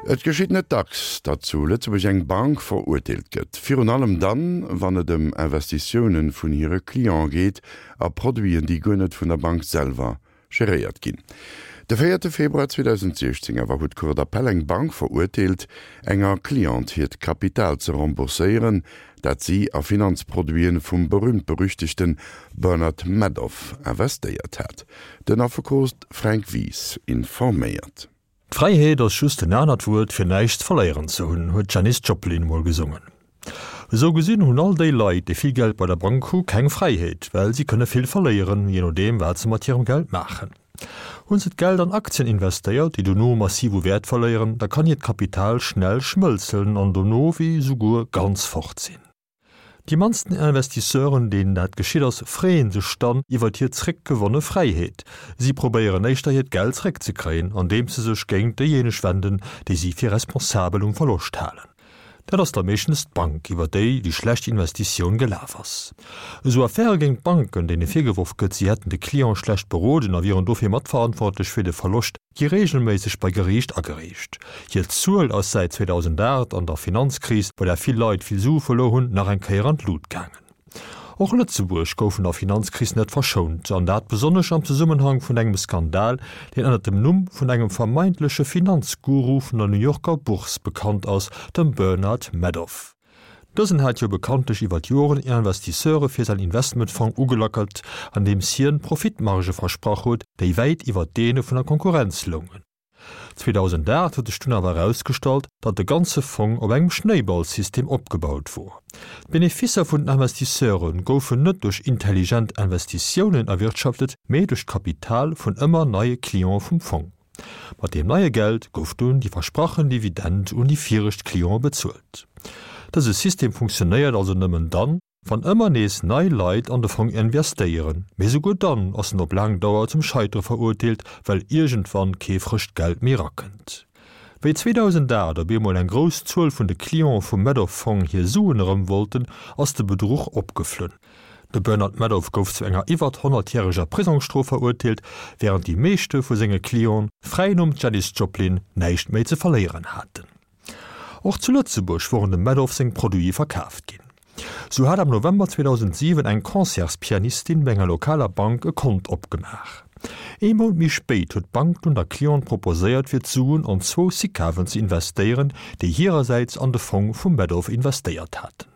Et geschitt net dacks, datt zu Lëtzebuerg eng Bank verurteelt gëtt. Virun allem dann, wann et ëm Investitiounen vun hire Cliente geet a Produiten, déi guer net vun der Bank selwer geréiert ginn. De véierte Februar 2016 awer huet d'Cour d'appel eng Bank verurteelt, enger Cliente hiert Kapital ze rembourséieren, dat si a Finanzproduiten vum berühmt-berüchtegte Bernard Madoff investéiert hat. Den Affekot Fränk Wies informéiert. D'Fräiheet ass just en anert Wuert fir näischt verléieren ze hunn, huet d'Janis Joplin mol gesongen. Esou gesinn hunn all déi Leit, déi vill Geld bei der Bank hu keng Fräiheet, well si kënne vill verléieren, jee nodeem wat se mat hirem Geld maachen. Hunn se d'Geld an Aktien investéiert, déi dono massiv u Wäert verléieren, da kann hiert Kapital schnell schmëlzen an dono wéi souguer ganz fort sinn. Déi mannsten Investisseuren, deenen dat geschitt ass, freeën sech dann iwwert hir zréckgewonne Fräiheet. Si probéieren éischter hiert Geld zréckzekréien, andeems se sech géint déijéineg wenden, déi si fir responsabel um Verloscht halen. Dat ass da meeschtens d'Bank, iwwer déi déi schlecht Investitioun gelaf ass. Esou Affäre géint Banken, deene virgeworf gëtt, si hätten de Client schlecht beroden a wieren dofir matverantwortlech fir de Verloscht, gi reegelméisseg bei Geriicht agereecht. Hir Zuel ass säit 2008 an der Finanzkris, bei där vill Leit vill Sue verluer hunn, nach eng Kéier an d'Lut gaangen. Och Lëtzebuerg gouf vun der Finanzkris net verschount, an dat besonnesch am Zesummenhang vun engem Skandal, deen ënnert dem Numm vun engem vermeintleche Finanzguru vun der New Yorker Bourse bekannt ass, dem Bernard Madoff. Dësen hat jo bekanntlech iwwer d'Joren Investisseure fir säin Investmentfong ugelackelt, andeems hien Profitmargë versprach huet, déi wäit iwwer deene vun der Konkurrenz loungen. 2008 huet sech dunn awer erausgestallt, datt de ganze Fong op engem Schnéiballsystem opgebaut wor. D'Beneficer vun den Investisseure goufen net duerch intelligent Investitiounen erwirtschaftet, mee duerch d'Kapital vun ëmmer neie Clientë vum Fong. Mat deem neie Geld gouf dunn déi versprachen Dividend un déi viregt Cliente bezuelt. Dëse System funktionéiert also nëmmen dann, wann ëmmer nees nei Leit an de Fong investéieren, mee souguer dann ass en op laang Dauer zum Scheitere verurteelt, well iergendwann kee frëscht Geld méi rakënnt. Wéi 2008 op eemol eng grouss Zuel vun de Cliente vum Madoff-Fong hir Suen erëm wollten, ass de Bedruch opgeflunn. De Bernard Madoff gouf zu enger iwwert honnertjäreger Prisongsstrof verurteelt, wärend déi meeschte vu senge Clienten, fräi nom Janis Joplin, näischt méi ze verléieren haten. Och zu Lëtzebuerg woren dem Madoff seng Produite verkaaft ginn. Sou hat am November 2007 eng Concertspianistin bei enger lokaler Bank e Kont opgemaach. Ee Mount méi spéit huet d'Bank dunn der Cliente proposéiert fir d'Suen an zwou Sicaven ze investéieren, déi hirersäits an de Fong vum Madoff investéiert haten.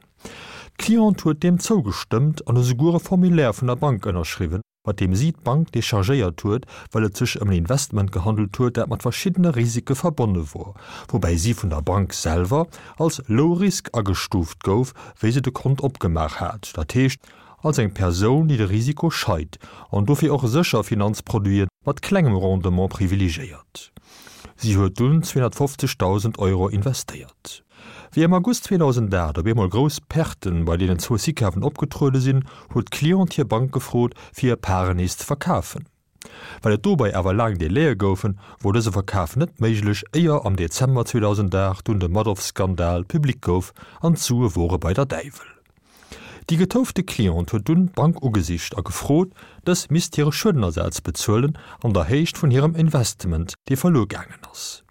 D'Cliente huet deem zougestëmmt an esouguer e Formulaire vun der Bank ënnerschriwwen, mat deem si d'Bank dechargéiert huet, well et sech ëm en Investment gehandelt huet, dat mat verschiddene Risike verbonne wor, woubäi si vun der Bank selwer als low risk agestuuft gouf, wéi se de Kont opgemaach hat, dat heescht als eng Persoun, déi de Risiko scheit an dofir och sécher Finanzproduite mat klengem Rendement privilegéiert. Si huet dunn 250.000 Euro investéiert. Wéi am August 2008 op eemol grouss Perten bei deenen zwou Sicaven opgetruede sinn, huet d'Cliente hir Bank gefrot, fir hir Paren nees ze verkafen. Well et dobei awer laang Délaië goufen, wor dëse Verkaf net méiglech, éier am Dezember 2008 dunn de Madoff-Skandal public gouf an d'Sue wore bei der Däiwel. Déi getoufte Cliente huet dunn d'Bank ugesicht a gefrot, dës misst hire Schuedenersaz bezuelen an der Héicht vun hirem Investment, dee verluer gaangen ass.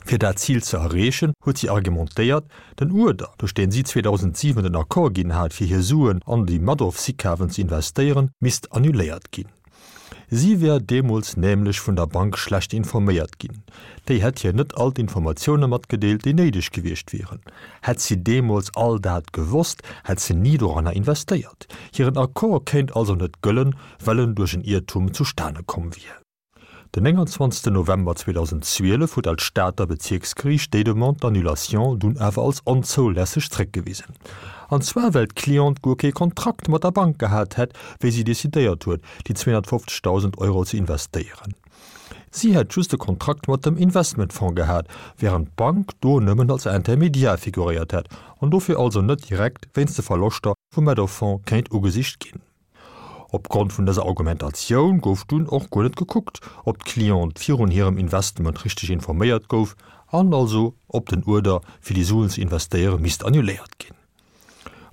Fir dat Zil ze erreechen, huet si argumentéiert, den Uerder, duerch deen si 2007 den Accord ginn hat, fir hir Suen an déi Madoff-Sicaven ze investéieren, misst annuléiert ginn. Si wär deemools nämlech vun der Bank schlecht informéiert ginn. Déi hätt hir net all d'Informatioune matgedeelt, déi néideg gewiescht wieren. Hätt si deemools all dat gewosst, hätt se ni doranner investéiert. Hiren Accord kéint also net gëllen, well en duerch en Iertum zustane komm wier. Den 29 November 2012 huet dat Stater Bezierksgeriicht déi Demande d'annulation dunn awer als onzoulässeg zréckgewisen. An zwar well d'Cliente guer kee Kontrakt mat der Bank gehat hätt, wéi si decidéiert huet, déi 250.000 Euro ze investéieren. Si hätt just e Kontrakt mat dem Investmentfonds gehat, wärend d'Bank do nëmmen als Intermédiaire figuréiert hätt an dofir also net direkt wéinst de Verloschter vum Madoff-Fonds kéint ugesicht ginn. Opgrond vun dëser Argumentatioun gouf dunn och guer net gekuckt, ob d'Cliente virun hirem Investment richteg informéiert gouf an also ob den Uerder, fir déi Suen ze investéieren, misst annuléiert ginn.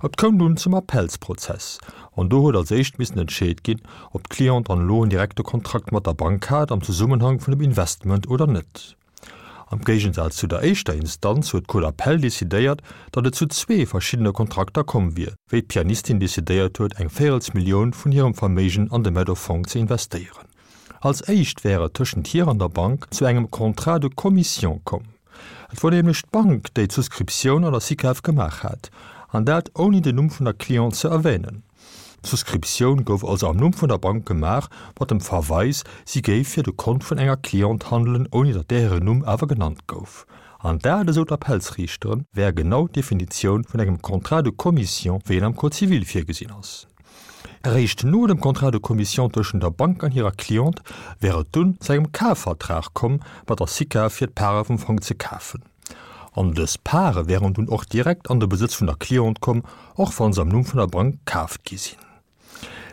Et koum dunn zum Appellsprozess an do huet als éischt missen entscheet ginn, ob d'Cliente dann elo en direkte Kontrakt mat der Bank hat am Zesummenhang vun dem Investment oder net. Am Géigensaz zu der éischter Instanz huet d'Cour d'appel decidéiert, datt et zu zwee verschiddene Kontrakter komm wier, wéi d'Pianistin decidéiert huet, eng Véierelsmillioun vun hirem Verméigen an de Meadow-Fong ze investéieren. Als éischt wär et tëschent hir an der Bank zu engem Contrat de commission komm. Et wor nämlech d'Bank, déi d'Souscriptioun an der SICAV gemaach hat, an dat ouni den Numm vun der Cliente ze erwänen. D'Souscriptioun gouf also am Numm vun der Bank gemaach, mat dem Verweis, si géif fir de Kont vun enger Cliente handelen, ouni datt där hiren Numm awer genannt gouf. An dat, esou d'Appellsriichteren, wär genau d'Definitioun vun engem Contrat de commission, wéi en am Code civil virgesinn ass. Eréischt no dem Contrat de commission tëschent der Bank an hirer Cliente wär et dunn zu engem Kafvertrag komm mat der SICAV fir d'Pare vum Fong ze kafen. An dës Pare wären dunn och direkt an de Besëtz vun der Cliente komm, och wa se am Numm vun der Bank kaaft gi sinn.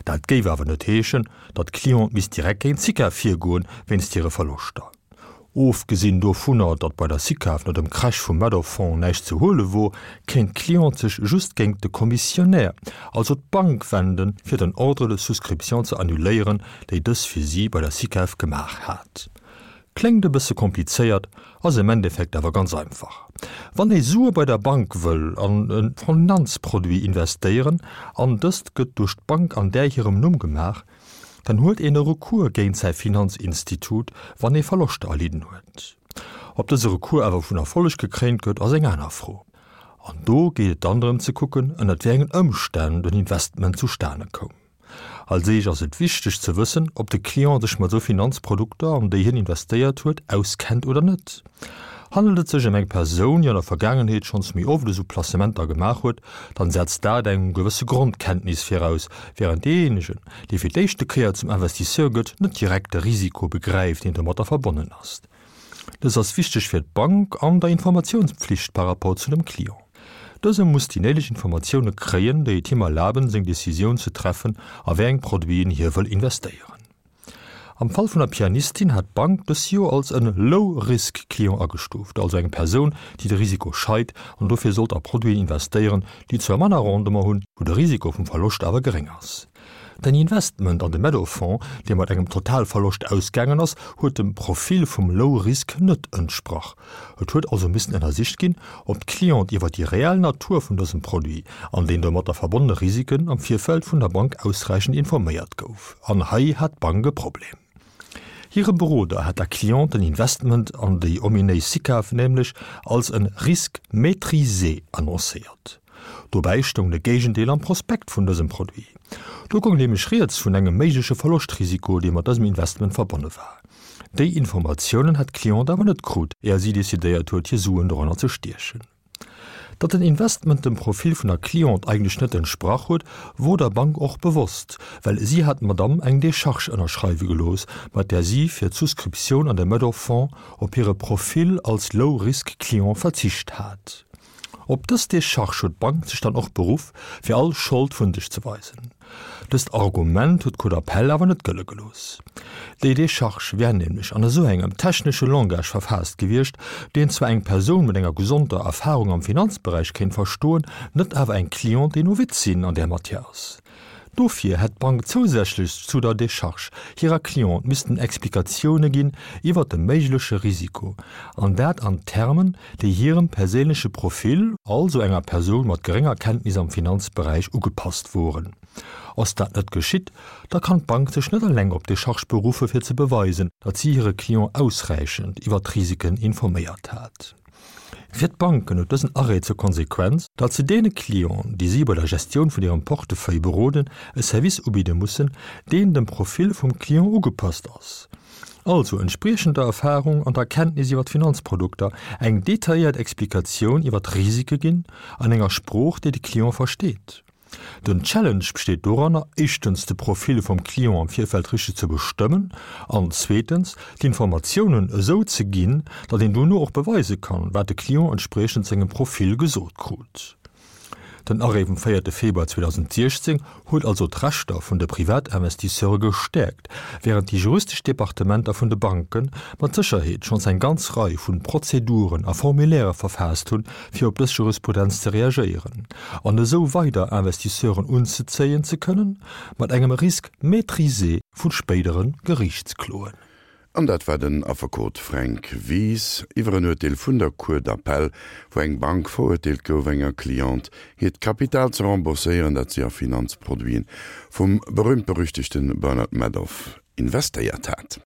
Dat géif awer net heeschen, datt d'Cliente misst direkt géint d'SICAV virgoen, wéinst hire Verloschter. Ofgesinn dovunner, datt bei der SICAV no dem Crash vum Madoff-Fonds näischt ze huele wor, kéint d'Cliente sech just géingt de Commissionnaire, also d'Bank, wenden, fir den Ordre de souscription ze annuléieren, déi dës fir si bei der SICAV gemaach hat. Kléngt e bësse komplizéiert, ass am Endeffekt awer ganz einfach. Wann ee Sue bei der Bank wëll an e Finanzproduit investéieren an dëst gëtt duerch d'Bank an där hirem Numm gemaach, dann huet een e Recours géint säi Finanzinstitut, wann ee Verloschter erlidden huet. Ob dëse Recours awer vun Erfolleg gekréint gëtt, ass eng aner Fro. An do geet et dann drëm ze kucken, ënnert wéi engen Ëmstänn den Investment zustane koum. Als éischt ass et wichteg ze wëssen, ob de Client sech mat esou Finanzprodukter, an déi hien investéiert huet, auskennt oder net. Handelt et sech ëm eng Persoun, déi an der Vergaangenheet schonns méi oft esou Placementer gemaach huet, dann setzt dat eng gewësse Grondkenntnis viraus, wärend deejéinegen, dee fir d'éischte Kéier zum Investisseur gëtt, net direkt de Risiko begräift, deen domatter verbonnen ass. Dës ass wichteg fir d'Bank an der Informatiounspflicht par rapport zu dem Client. Dëse muss déi néideg Informatioune kréien, déi et him erlaben, seng Decisioun ze treffen, a wéi eng Produiten hie wëll investéieren. Am Fall vun der Pianistin hat d'Bank dës jo als en Low-Risk-Client agestuuft, also eng Persoun, déi de Risiko scheit an dofir sollt a Produiten investéieren, déi zwar manner Rendement hunn, wou de Risiko vum Verloscht awer geréng ass. Den Investment an de Meadow-Fonds, dee mat engem Totalverloscht ausgaangen ass, huet dem Profil vum Low Risk net entsprach. Et huet also missen ënnersicht ginn, ob d'Cliente iwwer déi reell Natur vun dësem Produit an den domatter verbonnene Risiken am Virfeld vun der Bank ausräichend informéiert gouf. An hei hat d'Bank e Problem. Hire Beroder hat der Cliente den Investment an déi ominéis Sicav nämlech als en Risque maîtrisé annoncéiert. Dobäi stoung de Géigendeel am Prospekt vun dësem Produit. Do goung nämlech rieds vun engem méigleche Verloschtrisiko, dee mat dësem Investment verbonne war. Déi Informatiounen hat d'Cliente awer net krut, éier si decidéiert huet, hir Suen doranner ze stiechen. Datt den Investment dem Profil vun der Cliente eigentlech net entsprach huet, wor der Bank och bewosst, well si hat d'Madamm eng Decharge ënnerschreiwe gelooss, mat där si fir d'Souscriptioun an de Madoff-Fonds op hire Profil als Low-Risk-Client verzicht hat. Op dës Decharge huet d'Bank sech dann och beruff, fir all Schold vun sech ze weisen. Dëst Argument huet d'Cour d'appel awer net gëlle gelooss. Déi Decharge wär nämlech an esou engem technesche Langage verfaasst gewiescht, deen zwar eng Persoun mat enger gesonder Erfarung am Finanzberäich kéint verstoen, net awer eng Cliente, déi Novizin an där Matière ass. Dofir hätt d'Bank zousätzlech zu der Decharge hirer Cliente missten Explikatioune ginn iwwer de méigleche Risiko, an dat an Termen, déi hirem perséinleche Profil, also enger Persoun mat gerénger Kenntnis am Finanzberäich, ugepasst woren. Ass dat net geschitt, da kann d'Bank sech net eleng op d'Decharge beruffe fir ze beweisen, datt si hire Client ausräichend iwwer d'Risiken informéiert hat. Fir d'Banken huet dësen Arrêt zur Konsequenz, datt se deene Clienten, déi si bei der Gestioun vun hirem Portefeuille beroden, e Service ubidde mussen, deen dem Profil vum Client ugepasst ass, also entspriechend der Erfarung an der Kenntnis iwwer d'Finanzprodukter, eng detailléiert Explikatioun iwwer d'Risike ginn, an enger Sprooch, déi de Client versteet. Den Challenge besteet doranner, éischtens de Profil vum Client am Virfeld richteg ze bestëmmen an zweetens d'Informatiounen esou ze ginn, datt een dono och beweise kann, wat de Client entspriechend sengem Profil gesot krut. Den Arrêt vum véierte Februar 2016 huet also d'Rechter vun de Privatinvestisseure gestäerkt, wärend déi juristesch Departementer vun de Banke mat Sécherheet schonns eng ganz Rei vun Prozeduren a Formulairë verfaasst hunn, fir op dës Jurisprudenz ze reagéieren an esou weider Investisseuren unzezéien ze kënnen, mat engem Risque maîtrisé vu spéidere Geriichtskloen. An dat war den Affekot Fränk Wies iwwer en Urteel vun der Cour d'appel, wou eng Bank verurteelt gouf, enger Cliente hiert Kapital ze rembourséieren, dat si a Finanzproduiten vum berühmt-berüchtegte Bernard Madoff investéiert hat.